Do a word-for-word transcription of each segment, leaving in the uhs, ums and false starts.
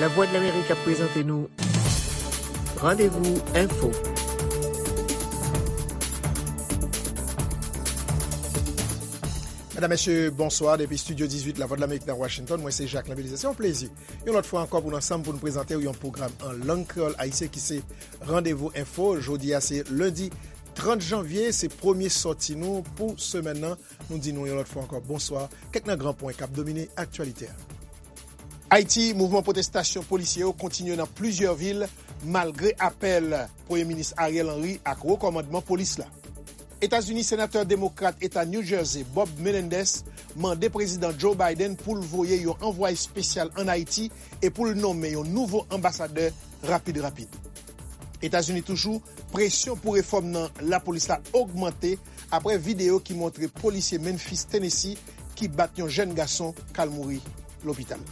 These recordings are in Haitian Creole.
Lavwadlamerik ap prezante nou Randevou Enfo. Medam, mesye, bonswa. Depi estidyo dizuit Lavwadlamerik nan Washington, mwen se Jacquelin Belizaire. Se yon plezi, yon lòt fwa ankò, pou n ansanm pou n prezante w yon pwogram an lang kreyòl ayisyen ki se Randevou Enfo. Jodi a se lendi trant janvye, se premye sòti nou pou semèn nan. Nou di nou yon lòt fwa ankò bonswa. Kèk nan gran pwen k ap domine aktyalite a. Ayiti, mouvman pwotestasyon polisye yo kontinye nan plizyè vil, malgre apèl Premye Minis Ariel Henry ak wo kòmandman polis la. Etazini, senatè demokrat eta New Jersey, Bob Menendez, mande Prezidan Joe Biden pou l voye yon anvwaye espesyal ann Ayiti e pou l nonmen yon nouvo anbasadè rapid rapid. Etazini toujou, presyon pou refòm nan lapolis la ogmante apre videyo ki montre polisye Memphis, Tennessee, ki bat yon jèn gason k al mouri lopital.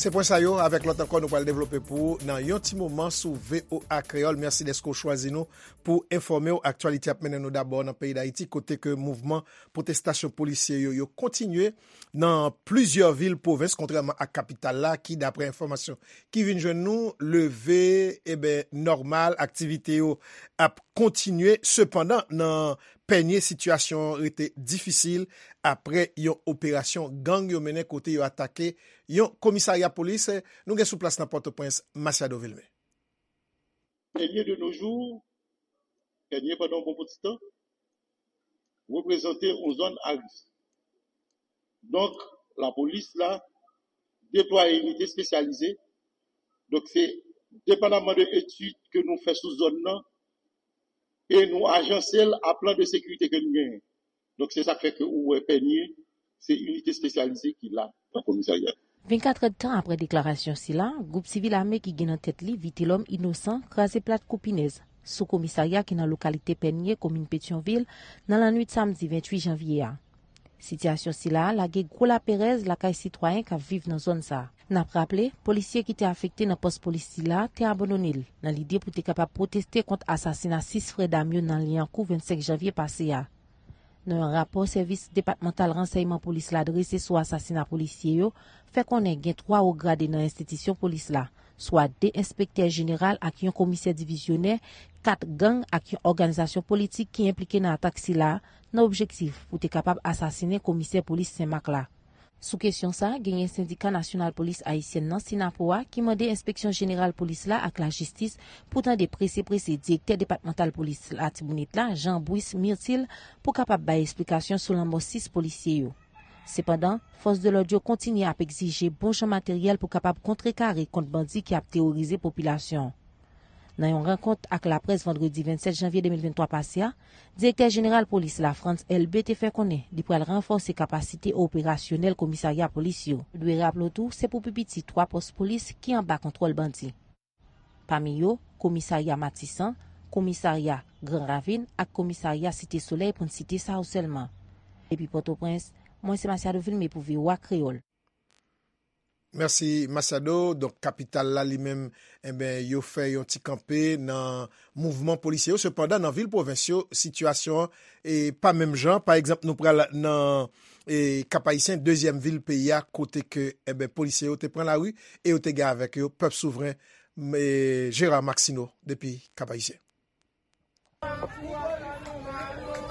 Se pwen sa yo, avèk lòt ankò, nou pral devlope pou ou nan yon ti moman sou V O A Kreyòl. Mèsi dèske w chwazi nou pou enfòme w. Aktyalite ap mennen nou dabò nan peyi Dayiti, kote ke mouvman pwotestasyon polisye yo, yo kontinye nan plizyè vil pwovens, kontrèman ak kapital la, ki, daprè enfòmasyon ki vin jwenn nou, leve, eben, nòmal, aktivite yo ap kontinye. Sepandan, nan Pènye, sitiyasyon an rete difisil apre yon operasyon gang yo mennen, kote yo atake yon komisarya polis. Nou gen sou plas nan Pòtoprens, Masiado Vilmé. Pènye de nos jours, Pènye pandan yon bon ti tan, reprezante yon zòn a risk. Donk, lapolis la deplwaye inite espesyalize. Donk, se depandaman de etid ke nou fè sou zòn nan, e nou ajanse l a plan de sekirite ke nou genyen. Donk, se sa k fè ke ou wè Pènye, se inite espesyalize ki la nan komisarya. Vennkat èdtan apre deklarasyon sila, gwoup sivil ame ki gen nan tèt li Vitelhomme Innocent kraze plat kou pinèz sou komisarya ki nan lokalite Pènye, komin Petyonvil, nan lannwit samdi venntuit janvye a. Sitiyasyon sila a lage gwo laperèz lakay sitwayen k ap viv nan zòn sa a. N ap raple, polisye ki te afekte nan pòs polis sila te abandone l nan lide pou te kapab pwoteste kont asasina sis frè dam yo nan Lyankou vennsenk janvye pase a. Nan yon rapò sèvis depatmantal ransèyman polis la drese sou asasina polisye yo, fè konnen gen twa wo grade nan enstitisyon polis la, swa de enspektè jeneral ak yon komisè divizyonè, kat gang ak yon òganizasyon politik ki enplike nan atak sila a, nan objektif pou te kapab asasinen komisè polis Senmak la. Sou kesyon sa a, genyen Sendika Nasyonal Polis Ayisyèn nan, Synapoha, ki mande Enspeksyon Jeneral Polis la ak Lajistis pou tande prese prese Direktè Depatmantal Polis Latibonit la, Jean Brice Myrtil, pou kapab bay esplikasyon sou lanmò sis polisye yo. Sepandan, fòs de lòd yo kontinye ap egzije bon jan materyèl pou kapab kontrekare kont bandi ki ap teworize popilasyon an. Nan yon rankont ak laprès vandredi vennsèt janvye de mil venntwa pase a, Direktè Jeneral Polis la, Frantz Elbé, te fè konnen li pral ranfòse kapasite operasyonèl komisarya polis yo. Nou dwe raple w tou, se pou pi piti twa pòs polis ki anba kontwòl bandi. Pami yo, komisarya Matisan, komisarya Gran Ravin ak komisarya Site Solèy, pou n site sa yo sèlman. Depi Pòtoprens, mwen se Masiado Vilmé pou V O A Kreyòl. Mèsi, Masiado. Donk, kapital la, li menm, enben, yo fè yon ti kanpe nan mouvman polisye yo. Sepandan, nan vil pwovens yo, sitiyasyon an, e, pa menm jan. Pa egzanp, nou pral nan, e, Kap Ayisyen, dezyèm vil peyi a, kote ke, enben, polisye yo te pran lari e yo te gen avèk yo pèp souvren, e, Gérard Maxineau, depi Kap Ayisyen.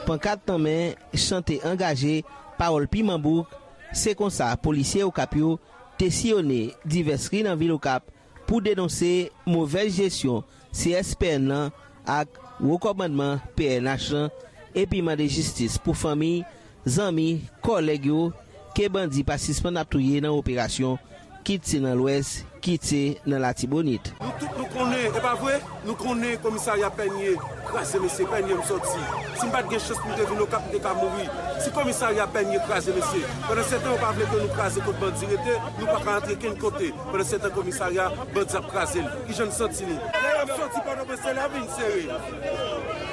Pankat nan men, chante angaje, pawòl piman bouk, se konsa polisye Okap yo te siyone divès ri nan vil Okap pou denonse movèz jesyon C S P N nan ak wo kòmandman P N H lan, epi mande jistis pou fanmi, zanmi, kòlèg yo, ke bandi pa sispann ap touye nan operasyon, kit se nan Lwès, kit se nan Latibonit. Nou tout nou konnen, e pa vre? Nou konnen komisarya Pènye kraze, mesye, Pènye m sòti. Si m pa t gen chans pou m te vin Okap, m te ka mouri. Si komisarya Pènye kraze, mesye, pandan se tan yo pa vle ke nou kraze kot bandi rete, nou pa ka antre kenn kote. Pandan se tan komisarya, bandi ap kraze l. Kijan n santi nou? Lè y ap sòti Pòtoprens, se la vi n sere.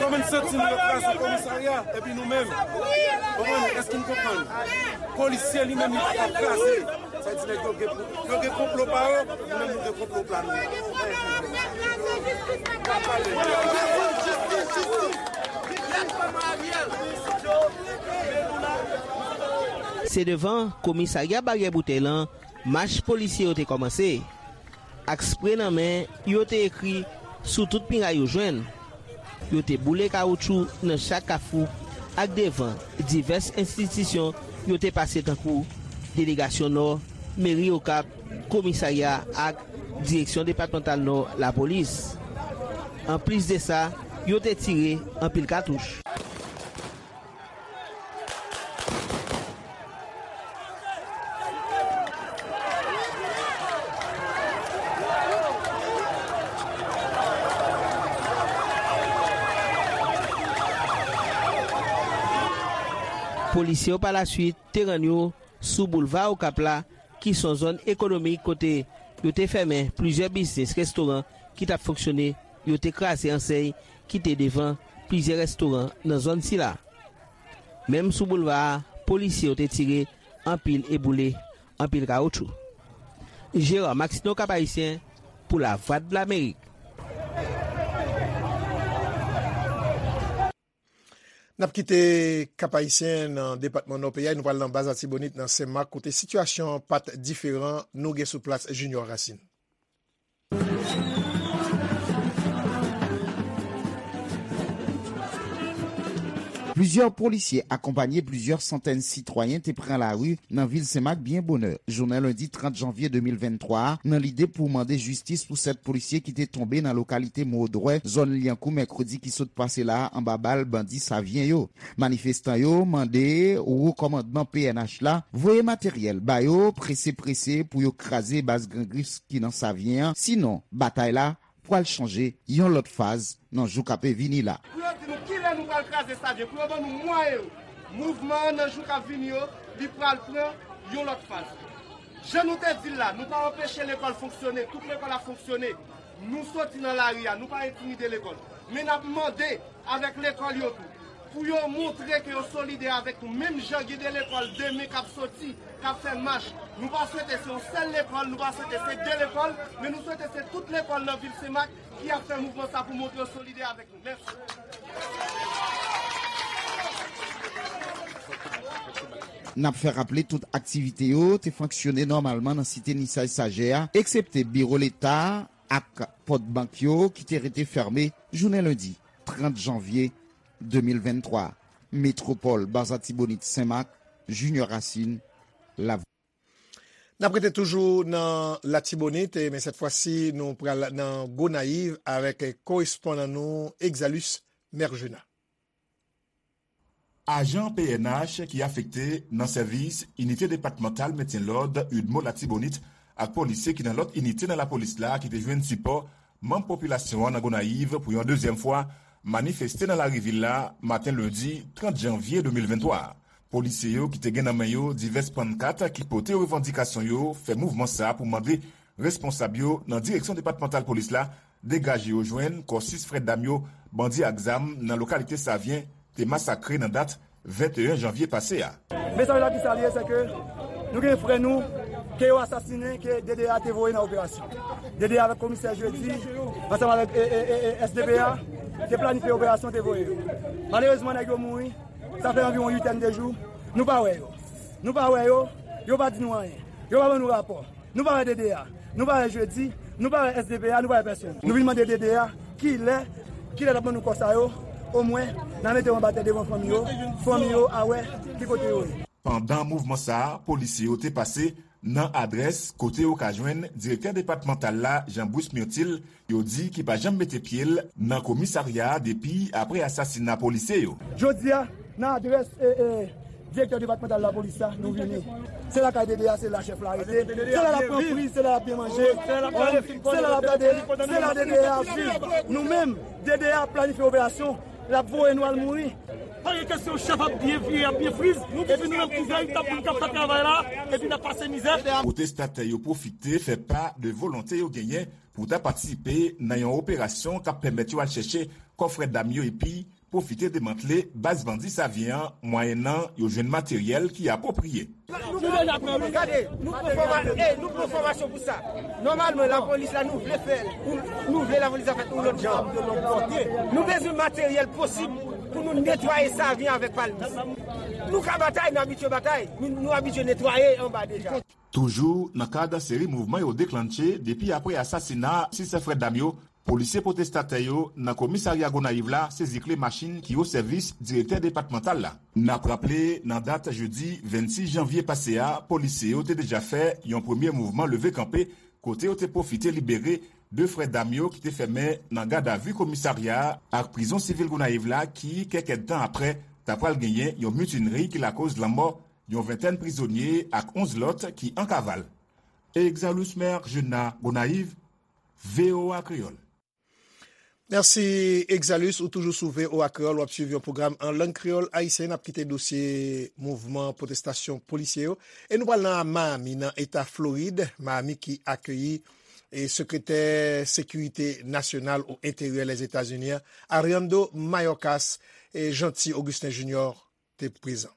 Kòman n santi nou? Yo kraze komisarya, epi nou menm, konprann? Èske n konprann? Polisye li menm, li pa ka kraze. Sa di nèg yo gen, yo gen konplo pa yo, nou menm nou gen konplo pa nou. Se devan komisarya Baryè Boutèy lan Mach polisye yo te kòmanse. Ak spre nan men, yo te ekri sou tout miray yo jwenn. Yo te boule kawoutchou nan chak kafou ak devan divès enstitisyon yo te pase tankou delegasyon Nò, meri Okap, komisarya ak direksyon depatmantal Nò lapolis. Anplis de sa, yo te tire anpil katouch. Polisye yo pa laswit te rann yo sou boulva Okap la, ki se yon zòn ekonomik kote yo te fèmen plizyè biznis restoran ki t ap fonksyone, yo te kraze ansèy ki te devan plizyè restoran nan zòn sila. Menm sou boulva a, polisye yo te tire anpil e boule anpil kawoutchou. Gérard Maxineau, Cap-Haïtien, pou Lavwadlamerik. N ap kite Kap Ayisyen nan depatman Nò peyi a, nou pral nan Baz Latibonit nan Senmak, kote sitiyasyon an pa t diferan. Nou gen sou plas Junior Racine. Plizyè polisye akonpanye plizyè santèn sitwayen te pran lari nan vil Senmak byen bonè jounen lendi trant janvye de mil venntwa a, nan lide pou mande jistis pou sèt polisye ki te tonbe nan lokalite Modwè, zòn Lyankou, mèkredi ki sot pase la a, anba bal bandi Savyen yo. Manifestan yo mande wo kòmandman P N H la voye materyèl ba yo prese prese pou yo kraze baz grangris ki nan Savyen an, sinon batay la pral chanje yon lòt faz nan jou k ape vini la. Pou yo di nou kilè nou pral kraze Savyen, pou yo ban nou mwayen yo. Mouvman an nan jou k ap vini yo, li pral pran yon lòt faz. Jan nou te di l la, nou pa anpeche lekòl fonksyone, tout lekòl ap fonksyone. Nou soti nan lari a, nou pa entimide lekòl. Men n ap mande avèk lekòl yo tou, pou yo montre ke yo solidè avèk nou, menm jan gen de lekòl demen k ap soti, k ap fè mach. Nou pa swete se yon sèl lekòl, nou pa swete se de lekòl, men nou swete se tout lekòl nan vil Senmak ki ap fè mouvman sa pou montre yo solidè avèk nou. Mèsi. N ap fè raple tout aktivite yo te fonksyone nòmalman nan site Nisaj Sajè a, eksepte biwo leta ak pòt bank yo ki te rete fèmen jounen lendi trant janvye de mil venntwa. Metwopòl, Baz Latibonit, Senmak, Junior Racine, Lavwadlamerik. N ap rete toujou nan Latibonit, men sèt fwa si nou pral nan Gonayiv avèk korespondan nou Exalus Mergena. Ajan P N H ki afekte nan sèvis Inite Depatmantal Mentyen Lòd UDMO Latibonit ak polisye ki nan lòt inite nan lapolis la ki te jwenn sipò manm popilasyon an nan Gonayiv pou yon dezyèm fwa manifeste nan lari vil la maten lendi trant janvye de mil venntwa a. Polisye yo ki te gen nan men yo divès pannkat ki pote revandikasyon yo fè mouvman sa pou mande responsab yo nan direksyon depatmantal polis la degaje yo jwenn kò sis frè dam yo bandi ak zam nan lokalite Savyen te masakre nan dat venteyen janvye pase a. Mesaj la ki sa l ye, se ke nou gen frè nou ke yo asasinen, ke D D A te voye nan operasyon. D D A avèk komisè Jedi, ansanm avèk S D P A, te planifye operasyon, te voye yo. Malerezman, nèg yo mouri, sa fè anviwon uitèn de jou, nou pa wè yo. Nou pa wè yo, yo pa di nou anyen. Yo pa ban nou rapò. Nou pa wè D D A, nou pa wè Jedi, nou pa wè S D P A, nou pa wè pèsonn. Nou vin mande D D A kilè, kilè l ap ban nou kò sa yo, omwen n a mete yo anba tè devan fanmi yo, fanmi yo a wè ki kote yo ye. Pandan mouvman sa a, polisye yo te pase nan adrès kote yo ka jwenn direktè depatmantal la, Jean Bruce Myrtil, yo di ki pa janm mete pye l nan komisarya a depi apre asasina polisye yo. Jodi a, nan adrès direktè depatmantal lapolis la, nou vini. Se lakay D D A, se la chèf la rete. Se la l ap pran fri, se la l ap byen manje, se la l ap gade, se la D D A ap viv. Nou menm, D D A ap planifye operasyon, l ap voye nou al mouri. Pa gen kesyon, chèf ap byen vire, ap byen friz, epi nou menm kouvèy, n ap moun k ap fè travay la, epi n ap pase mizè. Pwotestatè yo pwofite fè pa de volonte yo genyen pou ta patisipe nan yon operasyon k ap pèmèt yo al chèche kò frè dam yo epi pwofite demantle baz bandi Savyen an mwayennan yo jwenn materyèl ki apwopriye. Nou deja pran wi. Gade, nou pran fòma- e nou pran fòmasyon pou sa. Nòmalman lapolis la nou vle fè l, nou vle lapolis la fèt yon lòt jan. Nou bezwen materyèl posib Pou nou netwaye Savyen avèk Palmis. Nou ka batay, nou abitye batay. Nou, nou abitye netwaye anba deja. Toujou nan kad seri mouvman yo deklanche depi apre asasina sis frè dam yo, polisye pwotestatè yo nan komisarya Gonayiv la sezi kle machin ki o sèvis direktè depatmantal la. N ap raple, nan dat jedi vennsis janvye pase a, polisye yo te deja fè yon premye mouvman leve kanpe kote yo te pwofite libere de frè dam yo ki te fèmen nan gadavi komisarya a ak prizon sivil Gonayiv la ki, kèk èdtan apre, ta pral genyen yon mitinri ki lakoz lanmò yon ventèn prizonye ak onz lòt ki an kaval. Exalus Mer Jena Gonayiv, V O A Kreyòl. Mèsi Exalus, ou toujou sou V O A Kreyòl, w ap swiv yon pwogram an lang kreyòl ayisyen. N ap kite dosye mouvman pwotestasyon polisye yo e nou pral nan Miami, nan eta Florid, Miami ki akeyi e sekretè sekirite nasyonal o enteryè Lèzetazini an, Alejandro Mayorkas, e Jeanty Augustin Junior te prezan.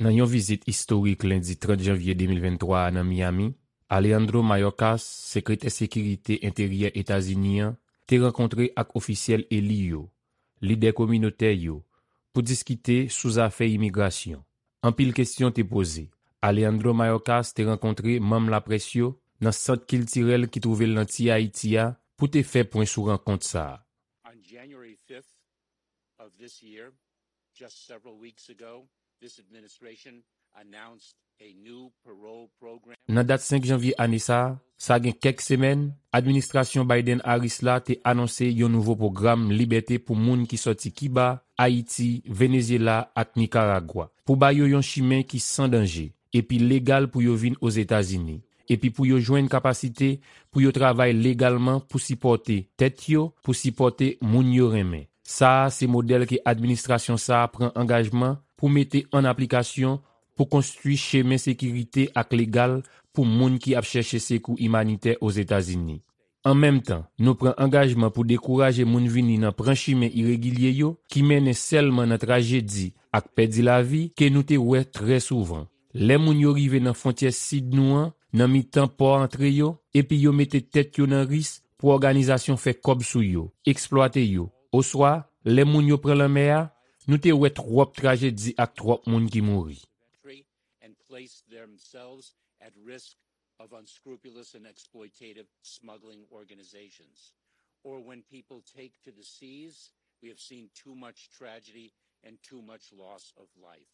Nan yon vizit istorik lendi trant janvye de mil venntwa a nan Miami, Alejandro Mayorkas, sekretè sekirite enteryè Etazini an, te rankontre ak ofisyèl eli yo, lidè kominotè yo, pou diskite sou zafè imigrasyon. Anpil kesyon te poze. Alejandro Mayorkas te rankontre manm laprès yo nan sant kiltirèl ki twouve l nan Ti Ayiti a pou te fè pwen sou rankont sa a. On January fifth of this year, just several weeks ago, this administration announced a new parole program. Nan dat senk janvye ane sa a, sa gen kèk semèn, administrasyon Biden-Harris la te anonse yon nouvo pwogram libète pou moun ki sòti Kiba, Ayiti, Venezyela ak Nikaragwa, pou ba yo yon chimen ki san danje epi legal pou yo vin Ozetazini, epi pou yo jwenn kapasite pou yo travay legalman pou sipòte tèt yo, pou sipòte moun yo renmen. Sa a se modèl ke administrasyon sa a pran angajman pou mete an aplikasyon pou konstwi chemen sekirite ak legal pou moun ki ap chèche sekou imanitè Ozetazini. An menm tan, nou pran angajman pou dekouraje moun vini nan pran chimen iregilye yo ki mennen sèlman nan trajedi ak pèdi lavi ke nou te wè trè souvan. Lè moun yo rive nan fwontyè sid nou an, nan mitan pò antre yo, epi yo mete tèt yo nan risk pou òganizasyon fè kòb sou yo, eksplwate yo, oswa, lè moun yo pran lanmè a, nou te wè twòp trajedi ak twòp moun ki mouri. And place themselves at risk of unscrupulous and exploitative smuggling organizations. Or when people take to the seas, we have seen too much tragedy and too much loss of life.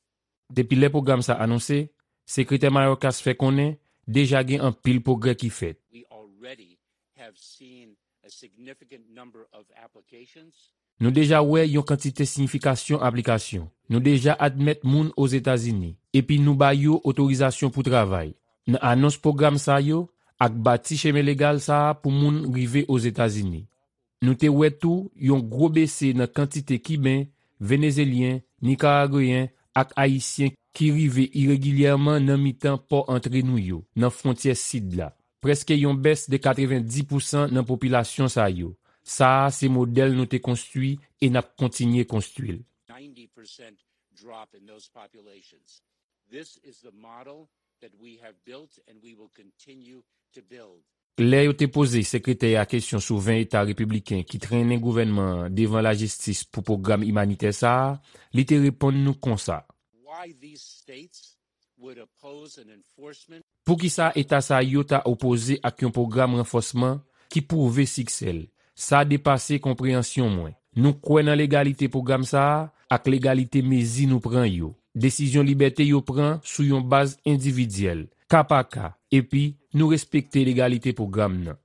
Depi lè pwogram sa anonse, Sekretè Mayorkas fè konnen deja gen anpil pwogrè ki fèt. We already have seen a significant number of applications. Nou deja wè yon kantite siyifikasyon aplikasyon. Nou deja admèt moun Ozetazini, epi nou ba yo otorizasyon pou travay. Nan anons pwogram sa yo, ak bati chemen legal sa a pou moun rive Ozetazini. Nou te wè tou yon gwo bese nan kantite Kiben, Venezelyen, Nikaragweyen ak Ayisyen ki rive iregilyèman nan mitan pò antre nou yo, nan fwontyè sid la. Prèske yon bès de katrevenndis pousan nan popilasyon sa yo. Sa a se modèl nou te konstwi e n ap kontinye konstwi l. Ninety percent drop in those populations. This is the model that we have built and we will continue to build. Lè yo te poze sekretè a kesyon sou ven eta repibliken ki trennen gouvènman an devan lajistis pou pwogram imanitè sa a, li te reponn nou konsa. Why these states would oppose an enforcement. Poukisa eta sa yo ta opoze ak yon pwogram ranfòsman ki pwouve siksè l? Sa depase konpreyansyon mwen. Nou kwè nan legalite pwogram sa a ak legalite mezi nou pran yo. Desizyon libète yo pran sou yon baz endividyèl, ka pa ka, epi nou respekte legalite pwogram nan.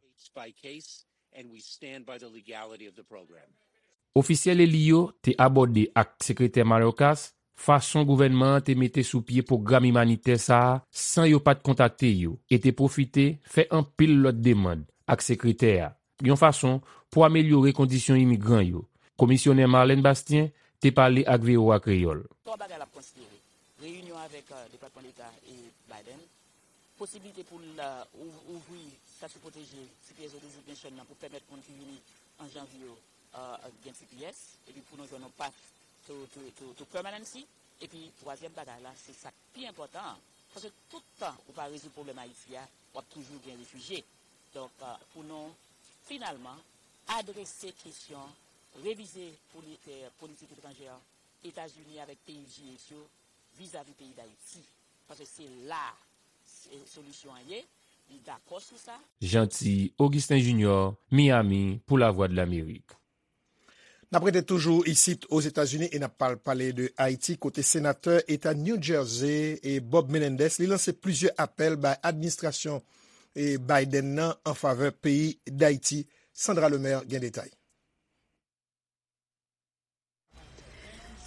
Ofisyèl eli yo te abòde ak Sekretè Mayorkas fason gouvènman an te mete sou pye pwogram imanitè sa a san yo pa t kontakte yo e te pwofite fè anpil lòt demann ak sekretè a, yon fason pou amelyore kondisyon imigran yo. Komisyonè Marlène Bastien te pale ak V O A Kreyòl. Twa bagay l ap konsidere: reyinyon avèk Depatman Deta e Biden, posiblite pou l ouvri stati pwoteje, T P S ou designation nan, pou pèmèt moun ki vini an janvye yo gen T P S, epi pou nou jwenn yon path to, to, to, to permanency. Epi twazyèm bagay la, se sa k pi enpòtan an. Paske tout tan ou pa rezoud pwoblèm Ayiti a, w ap toujou gen refijye. Donk, pou nou finalman adrese kesyon, revize politik etranjè Etazini avèk peyi G eight yo vizavi peyi Dayiti. Paske se la solisyon an ye, li dakò sou sa. Jeanty Augustin Junior, Miami, pou Lavwadlamerik. N ap rete toujou isit Ozetazini e n ap pale de Ayiti, kote senatè eta New Jersey e Bob Menendez li lanse plizyè apèl bay administrasyon Biden nan an favè peyi Dayiti. Sandra Lemaire gen detay.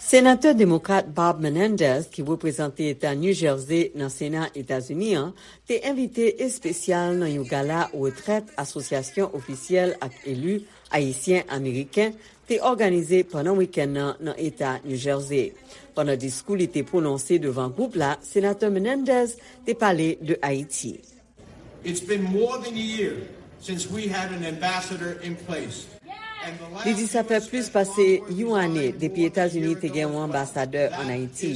Senatè demokrat Bob Menendez, ki reprezante eta New Jersey nan Sena Etazini an, te envite espesyal nan yon gala retrèt Asosyasyon Ofisyèl ak Eli Ayisyen Ameriken te òganize pandan wikenn nan nan eta New Jersey. Pandan diskou li te pwononse devan gwoup la, Senatè Menendez te pale de Ayiti. It's been more than a year since we had an ambassador in place. Li di sa fè plis pase yon ane depi Etazini te gen yon anbasadè ann Ayiti,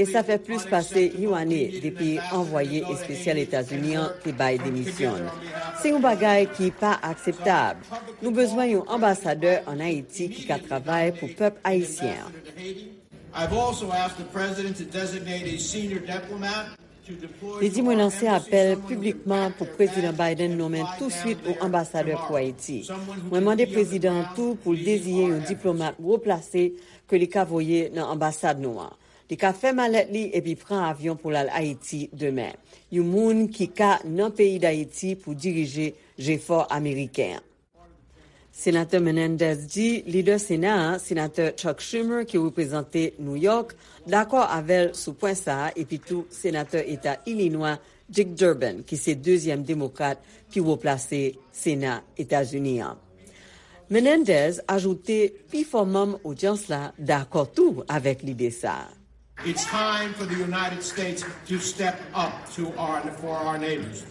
e sa fè plis pase yon ane depi anvwaye espesyal Etazini an te bay demisyon l. Se yon bagay ki pa akseptab. Nou bezwen yon anbasadè ann Ayiti ki ka travay pou pèp ayisyen an. I've also asked the president to designate a senior diplomat. Li di mwen lanse apèl piblikman pou Prezidan Biden nonmen touswit yon anbasadè pou Ayiti. Mwen mande prezidan an tou pou l deziye yon diplomat wo plase ke li ka voye nan anbasad nou an. Li ka fè malèt li epi pran avyon pou l al Ayiti demen. Yon moun ki ka nan peyi Dayiti pou dirije jefò ameriken an. Senatè Menendez di lidè Sena a, Senatè Chuck Schumer ki reprezante New York, dakò avè l sou pwen sa a epi tou Senatè Eta Ilinwa Dick Durbin ki se dezyèm demokrat pi wo plase Sena Etazini an. Menendez ajoute pi fò manm odyans la dakò tou avèk lide sa a. It's time for the United States to step up to our, for our neighbors.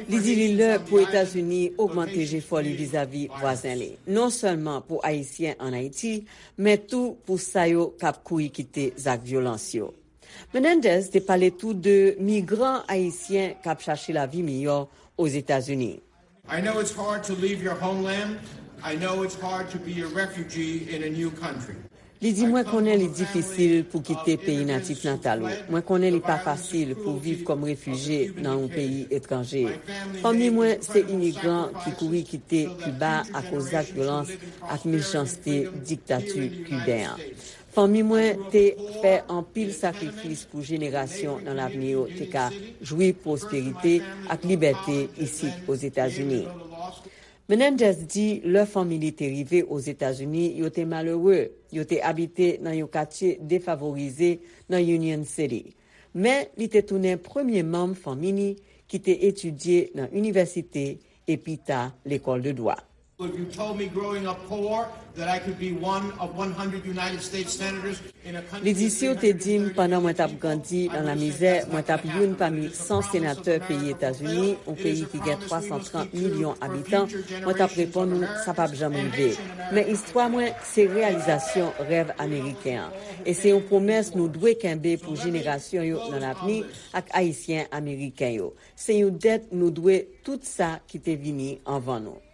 Li di li lè pou Etazini ogmante jefò li vizavi vwazen li, non sèlman pou Ayisyen ann Ayiti, men tou pou sa yo k ap kouri kite zak vyolans yo. Menendez te pale tou de migran ayisyen k ap chache lavi miyò Ozetazini. I know it's hard to leave your homeland. I know it's hard to be a refugee in a new country. Li di, mwen konnen li difisil pou kite peyi natif natal ou. Mwen konnen li pa fasil pou viv kòm refijye nan yon peyi etranje. Fanmi mwen se imigran ki kouri kite Kiba akoz zak vyolans ak mechanste diktati kiben an. Fanmi mwen te fè anpil sakrifis pou jenerasyon nan lavni yo te ka jwi pwosperite ak libète isit Ozetazini. Menendez di lè fanmi li te rive Ozetazini, yo te malere, yo te abite nan yon katye defavorize nan Union City. Men li te tounen premye manm fanmi li ki te etidye nan inivèsite e pita lekòl de dwa. If you told me growing up poor that I could be one of one hundred United States senators in a country Li di, si w te di m pandan mwen t ap grandi nan lamizè, mwen t ap youn pami san senatè peyi Etazini, yon peyi ki gen twa san trant milyon abitan, mwen t ap reponn ou, sa p ap janm rive. Men istwa mwen se reyalizasyon rèv ameriken an. E se yon pwomès nou dwe kenbe pou jenerasyon yo nan lavni ak Ayisyen ameriken yo. Se yon dèt nou dwe tout sa ki te vini anvan nou.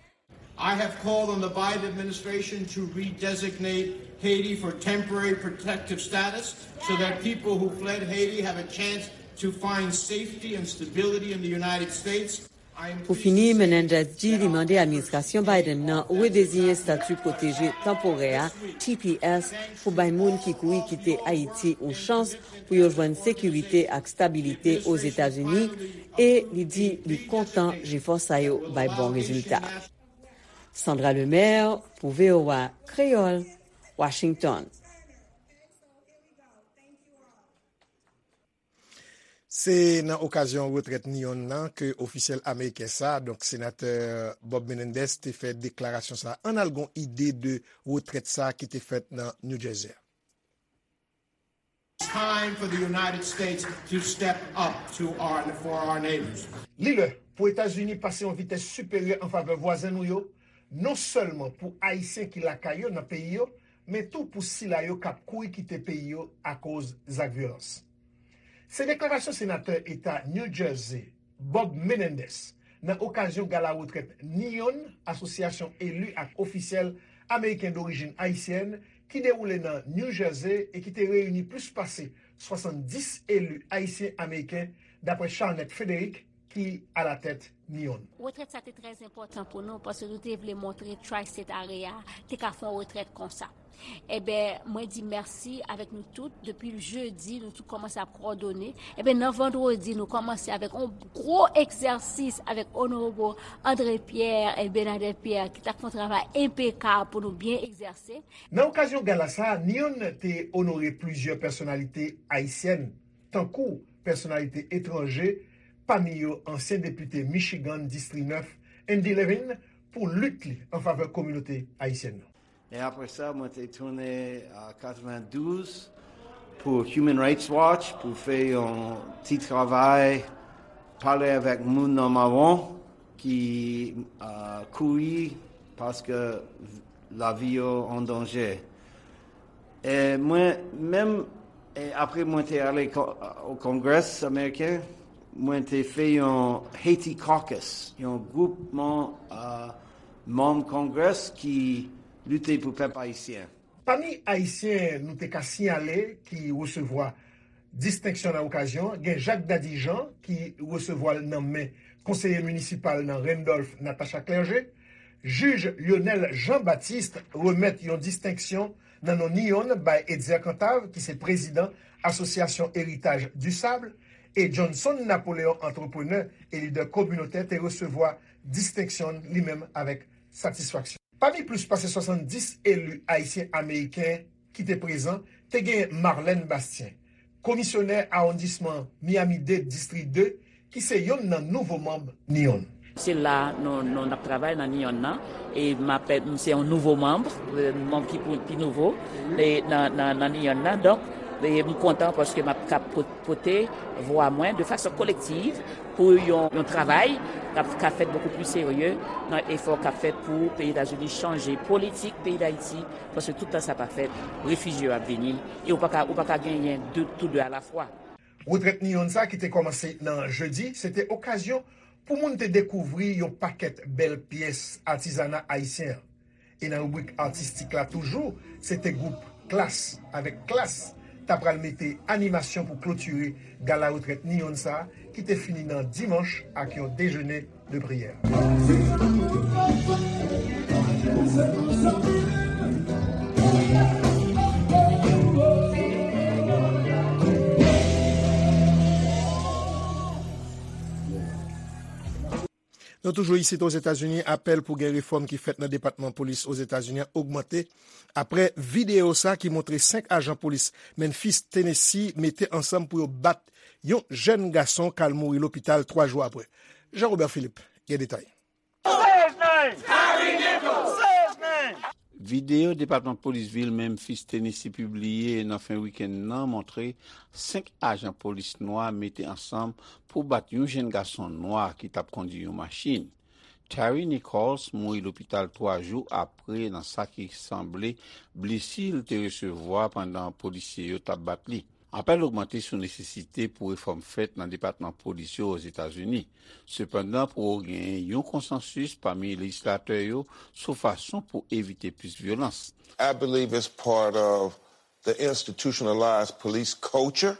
I have called on the Biden administration to redesignate Haiti for temporary protective status so that people who fled Haiti have a chance to find safety and stability in the United States. Pou fini, Menendez di li mande administrasyon Biden nan redeziyen estati pwoteje tanporè a, T P S, pou bay moun ki kouri kite Ayiti yon chans pou yo jwenn sekirite ak stabilite Ozetazini, e li di li kontan jefò sa yo bay bon rezilta. Sandra Lemaire pou V O A Kreyòl, Washington. Se nan okazyon retrèt Neon nan ke ofisyèl ameriken sa, donk senatè Bob Menendez, te fè deklarasyon sa. Ann al gon ide de retrèt sa ki te fèt nan New Jersey. It's time for the United States to step up to our, for our neighbors. Li lè pou Etazini pase yon vitès siperyè an favè vwazen nou yo, non sèlman pou Ayisyen ki lakay yo nan peyi yo, men tou pou sila yo k ap kouri kite peyi yo akoz zak vyolans. Se deklarasyon senatè eta New Jersey, Bob Menendez, nan okazyon gala retrèt Neon, asosyasyon eli ak ofisyèl ameriken dorijin ayisyèn, ki dewoule nan New Jersey e ki te reyini plis pase swasanndis eli ayisyen-ameriken, dapre Charnette Frederick, ki alatèt NEON. Retrèt sa te trè enpòtan pou nou, paske nou te vle montre Tri-State Area te ka fè yon retrèt konsa. Ebyen, mwen di mèsi avèk nou tout. Depi jedi, nou tout kòmanse ap kowòdone. Ebyen, nan vandredi, nou kòmanse avèk yon gwo egzèsis avèk Onorab André Pierre e Bernadette Pierre, ki t ap fè yon travay enpekab pou nou byen egzèse. Nan okazyon gala sa a, NEON te onore plizyè pèsonalite ayisyèn, tankou pèsonalite etranje, pami yo ansyen depite Michigan, Distri nèf, Andy Levin, pou lit li an favè kominote ayisyèn nan. E apre sa, mwen te tounen a katrevendouz pou Human Rights Watch pou fè yon ti travay, pale avèk moun nan mawon ki, a, kouri paske lavi yo an danje. E mwen menm, e apre mwen te ale ko-, o Kongrès Ameriken, mwen te fè yon Haiti Caucus, yon gwoupman, a, manm Kongrès ki lite pou pèp ayisyen. Pami Ayisyen nou te ka siyale ki resevwa distenksyon nan okazyon an, gen Jacques Dady Jean ki resevwa l nan men konseye minisipal nan Randolph, Natacha Clergé. Jij Lionel Jean Baptiste remèt yon distenksyon nan non NEON bay Etzer Cantave, ki se prezidan Asosyasyon Héritage du Sable, e Johnson Napoléon, antreprenè e lidè kominotè, te resevwa distenksyon li menm avèk satisfaksyon. Pami plis pase swasanndis eli ayisyen-ameriken ki te prezan, te gen Marlène Bastien, komisyonè awondisman Miami-Dade, Distri de, ki se yonn nan nouvo manm NEON. Se la nou, nou n ap travay nan NEON nan, e m ap, m se yon nouvo manm, e, manm ki pou, pi nouvo, e, nan, nan, nan NEON nan. Donk, e, m kontan paske m ap ka po-, pote vwa mwen de fason kolektiv pou yon, yon travay k ap, k ap fèt bokou pli serye nan efò k ap fèt pou peyi Etazini chanje politik peyi Dayiti, paske tout tan sa pa fèt, refijye yo ap vini, e ou pa ka, ou pa ka genyen de, tou de alafwa. Retrèt NEON sa ki te kòmanse nan jedi, se te okazyon pou moun te dekouvri yon pakèt bèl pyès atizana ayisyen an. E nan ribrik atistik la toujou, se te gwoup Klass avèk Klass ta pral mete animasyon pou klotire gala retrèt NEON sa a, ki te fini nan dimanch ak yon dejene de priyè. Nou toujou isit Ozetazini, apèl pou gen refòm ki fèt nan Depatman Polis Ozetazini an ogmante apre videyo sa ki montre senk ajan polis Memphis, Tennessee, mete ansanm pou yo bat yon jèn gason k al mouri lopital twa jou apre. Jean Robert Philippe gen detay. Videyo Depatman Polis vil Memphis, Tennessee pibliye nan fen wikenn nan montre senk ajan polis nwa mete ansanm pou bat yon jèn gason nwa ki t ap kondui yon machin. Terry Nichols mouri lopital twa jou apre nan sa ki sanble blesi l te resevwa pandan polisye yo t ap bat li. Apèl ogmante sou nesesite pou refòm fèt nan depatman polis yo Ozetazini. Sepandan, pou genyen yon konsansis pami lejislatè yo sou fason pou evite plis vyolans. I believe it's part of the institutionalized police culture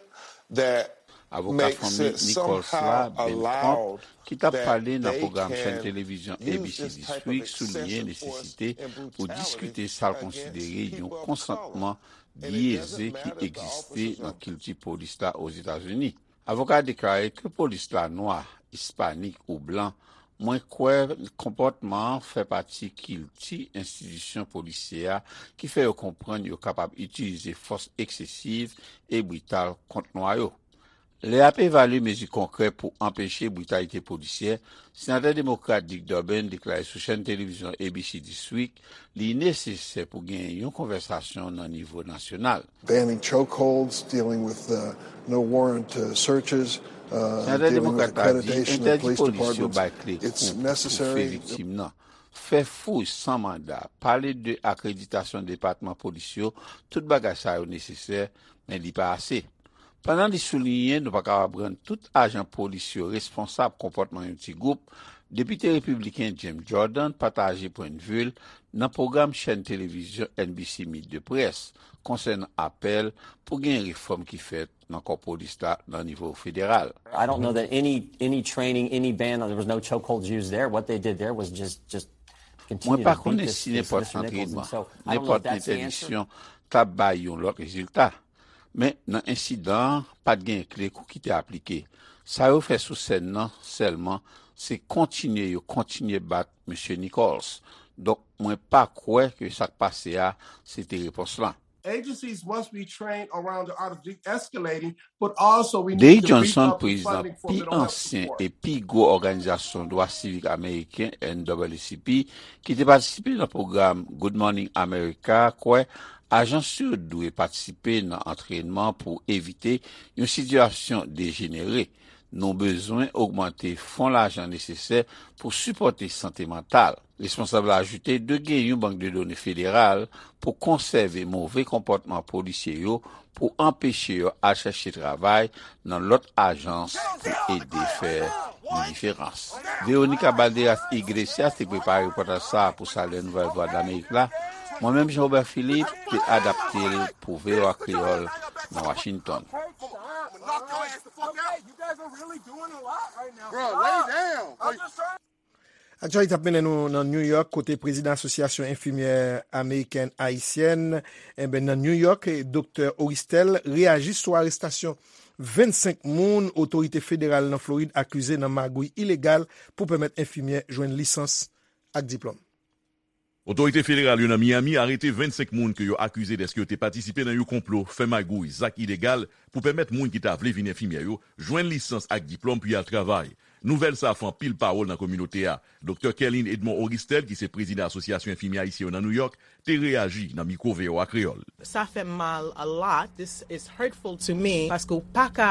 that Avoka fanmi Nichols la, Ben Crump, ki t ap pale nan pwogram chèn televizyon A B C This Week, souliye nesesite pou diskite sa l konsidere yon konsantman byeze ki egziste nan kilti polis la Ozetazini. Avoka a deklare ke polis la nwa, ispanik ou blan, mwen kwè konpòtman an fè pati kilti enstitisyon polisyè a ki fè yo konprann yo kapab itilize fòs eksesiv e brital kont nwa yo. Lè y ap evalye mezi konkrè pou anpeche britalite polisyè, Senatè Demokrat Dick Durbin deklare sou chèn televizyon A B C This Week li nesesè pou gen yon konvèsasyon nan nivo nasyonal. Banning chokeholds, dealing with uh, no warrant uh, searches, uh, Senatè Demokrat la di entèdi polis yo bay kle kou pou toufe viktim nan, fè fouy san manda, pale de akreditasyon depatman polis yo, tout bagay sa yo nesesè, men li pa ase. Pandan li souliyen nou pa kapab rann tout ajan polis yo responsab konpòtman yon ti gwoup, Depite repibliken Jim Jordan pataje pwennvi l nan pwogram chèn televizyon N B C Meet the Press konsènan apèl pou gen refòm ki fèt nan kò polis la nan nivo federal. I don't know that any any training, any ban, there was no chokeholds used there. What they did there was just just Mwen continue pa to beat konnen this si this nenpòt Mister Nichols, and antrenman, so I don't know if nenpòt that's the answer. Entèdiksyon t ap bay yon lòt rezilta. Men nan ensidan an, pa t gen kle kou ki te aplike. Sa yo fè sou sèn nan sèlman, se kontinye yo kontinye bat Mesye Nichols. Donk, mwen pa kwè ke sa k pase a, se te repons lan. Agencies must be trained around the art of de-escalating, but also we need Dave to beef Johnson, up the prezidan funding for pi mental health ansyen support. E pi gwo òganizasyon dwa sivik ameriken, N double A C P, ki te patisipe nan pwogram Good Morning America, kwè ajans yo dwe patisipe nan antrènman pou evite yon sitiyasyon dejenere. Nou bezwen ogmante fon lajan nesesè pou sipòte sante mantal. Responsab la ajoute dwe gen yon bank de done federal pou konsève move konpòtman polisye yo, pou anpeche yo al chèche travay nan lòt ajans pou ede fè yon diferans. Veronica Balderas Iglesias te prepare repòtaj sa a pou Salè Nouvèl Vwadlamerik la. Mwen menm, Jean Robert Philippe, te adapte l pou V O A Kreyòl nan Washington. Bro, lay down. Aktyalite ap mennen nou nan New York, kote prezidan Asosyasyon Enfimyè Amerikèn Ayisyèn, enben, nan New York, Doktè Oristel, reyaji sou arestasyon vennsenk moun otorite federal nan Florid akize nan magouy ilegal pou pèmèt enfimyè jwenn lisans ak diplòm. Otorite federal yo nan Miami arete vennsenk moun ke yo akize dèske yo te patisipe nan yon konplo, fè magouy, zak ilegal pou pèmèt moun ki ta vle vin enfimyè yo jwenn lisans ak diplòm pou y al travay. Nouvèl sa a fè anpil pawòl nan kominote a. Doktè Kerlin Edmond Oristel, ki se prezidan Asosyasyon Enfimyè Ayisyen yo nan New York, te reyaji nan mikwo V O A Kreyòl. Sa fè m mal a lot. This is hurtful to me. Paske w pa ka,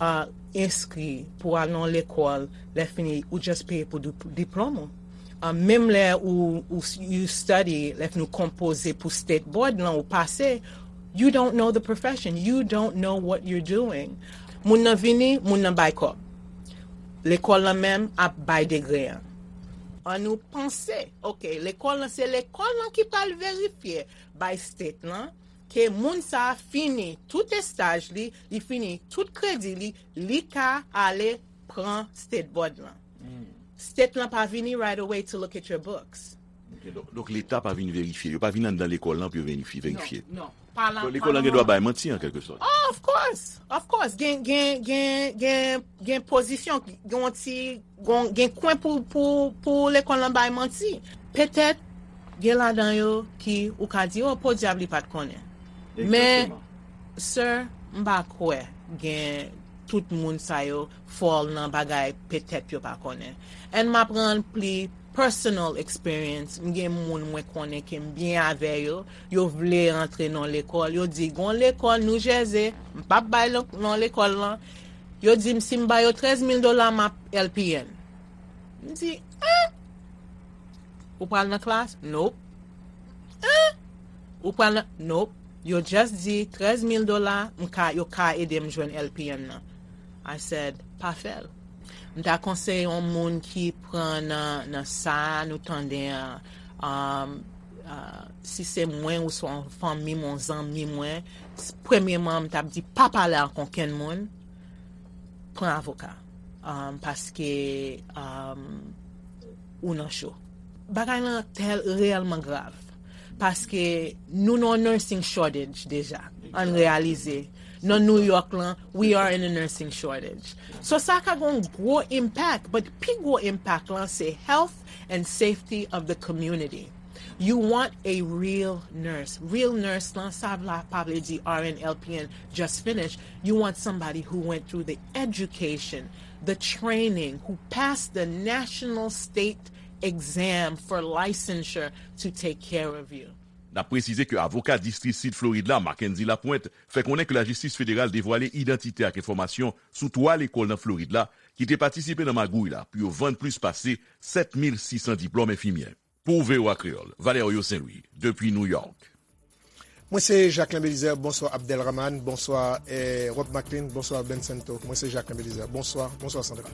uh, enskri pou al nan lekòl, lè fini, ou just peye pou di-, diplòm ou. Uh, menm lè ou, ou s-, you study, lè fini ou konpoze pou state board lan, ou pase, you don't know the profession. You don't know what you're doing. Moun nan vini, moun nan bay kòb. Lekòl lan menm ap bay degre an. An nou panse, ok, lekòl lan, se lekòl lan ki pral verifye bay state lan, ke moun sa a fini tout estaj li, li fini tout kredi li, li ka ale pran state board lan. State lan pa vini right away to look at your books. Ok, donk, donk Leta pa vin verifye, yo pa vin anndan lekòl lan pou yo verifye, verifye. Non, non. Donk, lekòl lan gen dwa bay manti, an kèlke sòt. Oh, of course, of course. Gen, gen, gen, gen, gen pozisyon, gen yon ti, gen, gen kwen pou, pou, pou lekòl lan bay manti. Petèt, gen ladan yo ki ou ka di, oh, podyab li pa t konnen. Men, sir, m pa kwè gen tout moun sa yo fall nan bagay petèt yo pa konnen. And m ap rann pli personal experience, m gen moun mwen konnen ke m byen avè yo, yo vle rantre nan lekòl, yo di, gon lekòl New Jersey, m p ap bay non, non lekòl lan, yo di m si m ba yo trèz mil dola, m ap L P N. M di, en? Ou pral nan klas? Nope. En? Ou pral nan, nope. Yo just di trèz mil dola, m ka, yo ka ede m jwenn L P N nan. I said, pa fè l. M ta konseye yon moun ki pran nan, nan sa nou tande an, um, uh, si se mwen ou swa yon fanmi m, yon zanmi mwen, s-, premyeman, m t ap di, pa pale ak okenn moun, pran avoka. Um, paske, um, ou nan cho. Bagay lan tèl reyèlman grav. Paske nou nan nursing shortage deja. Ann reyalize. Nan New York lan, we are in a nursing shortage. So sa ka gon gwo impact, but pi gwo impact lan se health and safety of the community. You want a real nurse. Real nurse lan, sa vla pa vle di R N, L P N, just finish. You want somebody who went through the education, the training, who passed the national state exam for licensure to take care of you. N ap presize ke avoka Distri Sid Florid la, Mackenzie Lapointe, fè konnen ke lajistis federal devwale idantite ak enfòmasyon sou twa lekòl nan Florid la ki te patisipe nan magouy la pou yo vann plis pase sèt mil sis san diplòm enfimyè. Pou V O A Kreyòl, Valerio Saint-Louis, depi New York. Mwen se Jacquelin Belizaire, bonswa Abdelrahman, bonswa, eh, Rob Maclean, bonswa Ben Santo. Mwen se Jacquelin Belizaire, bonswa, bonswa Sandra.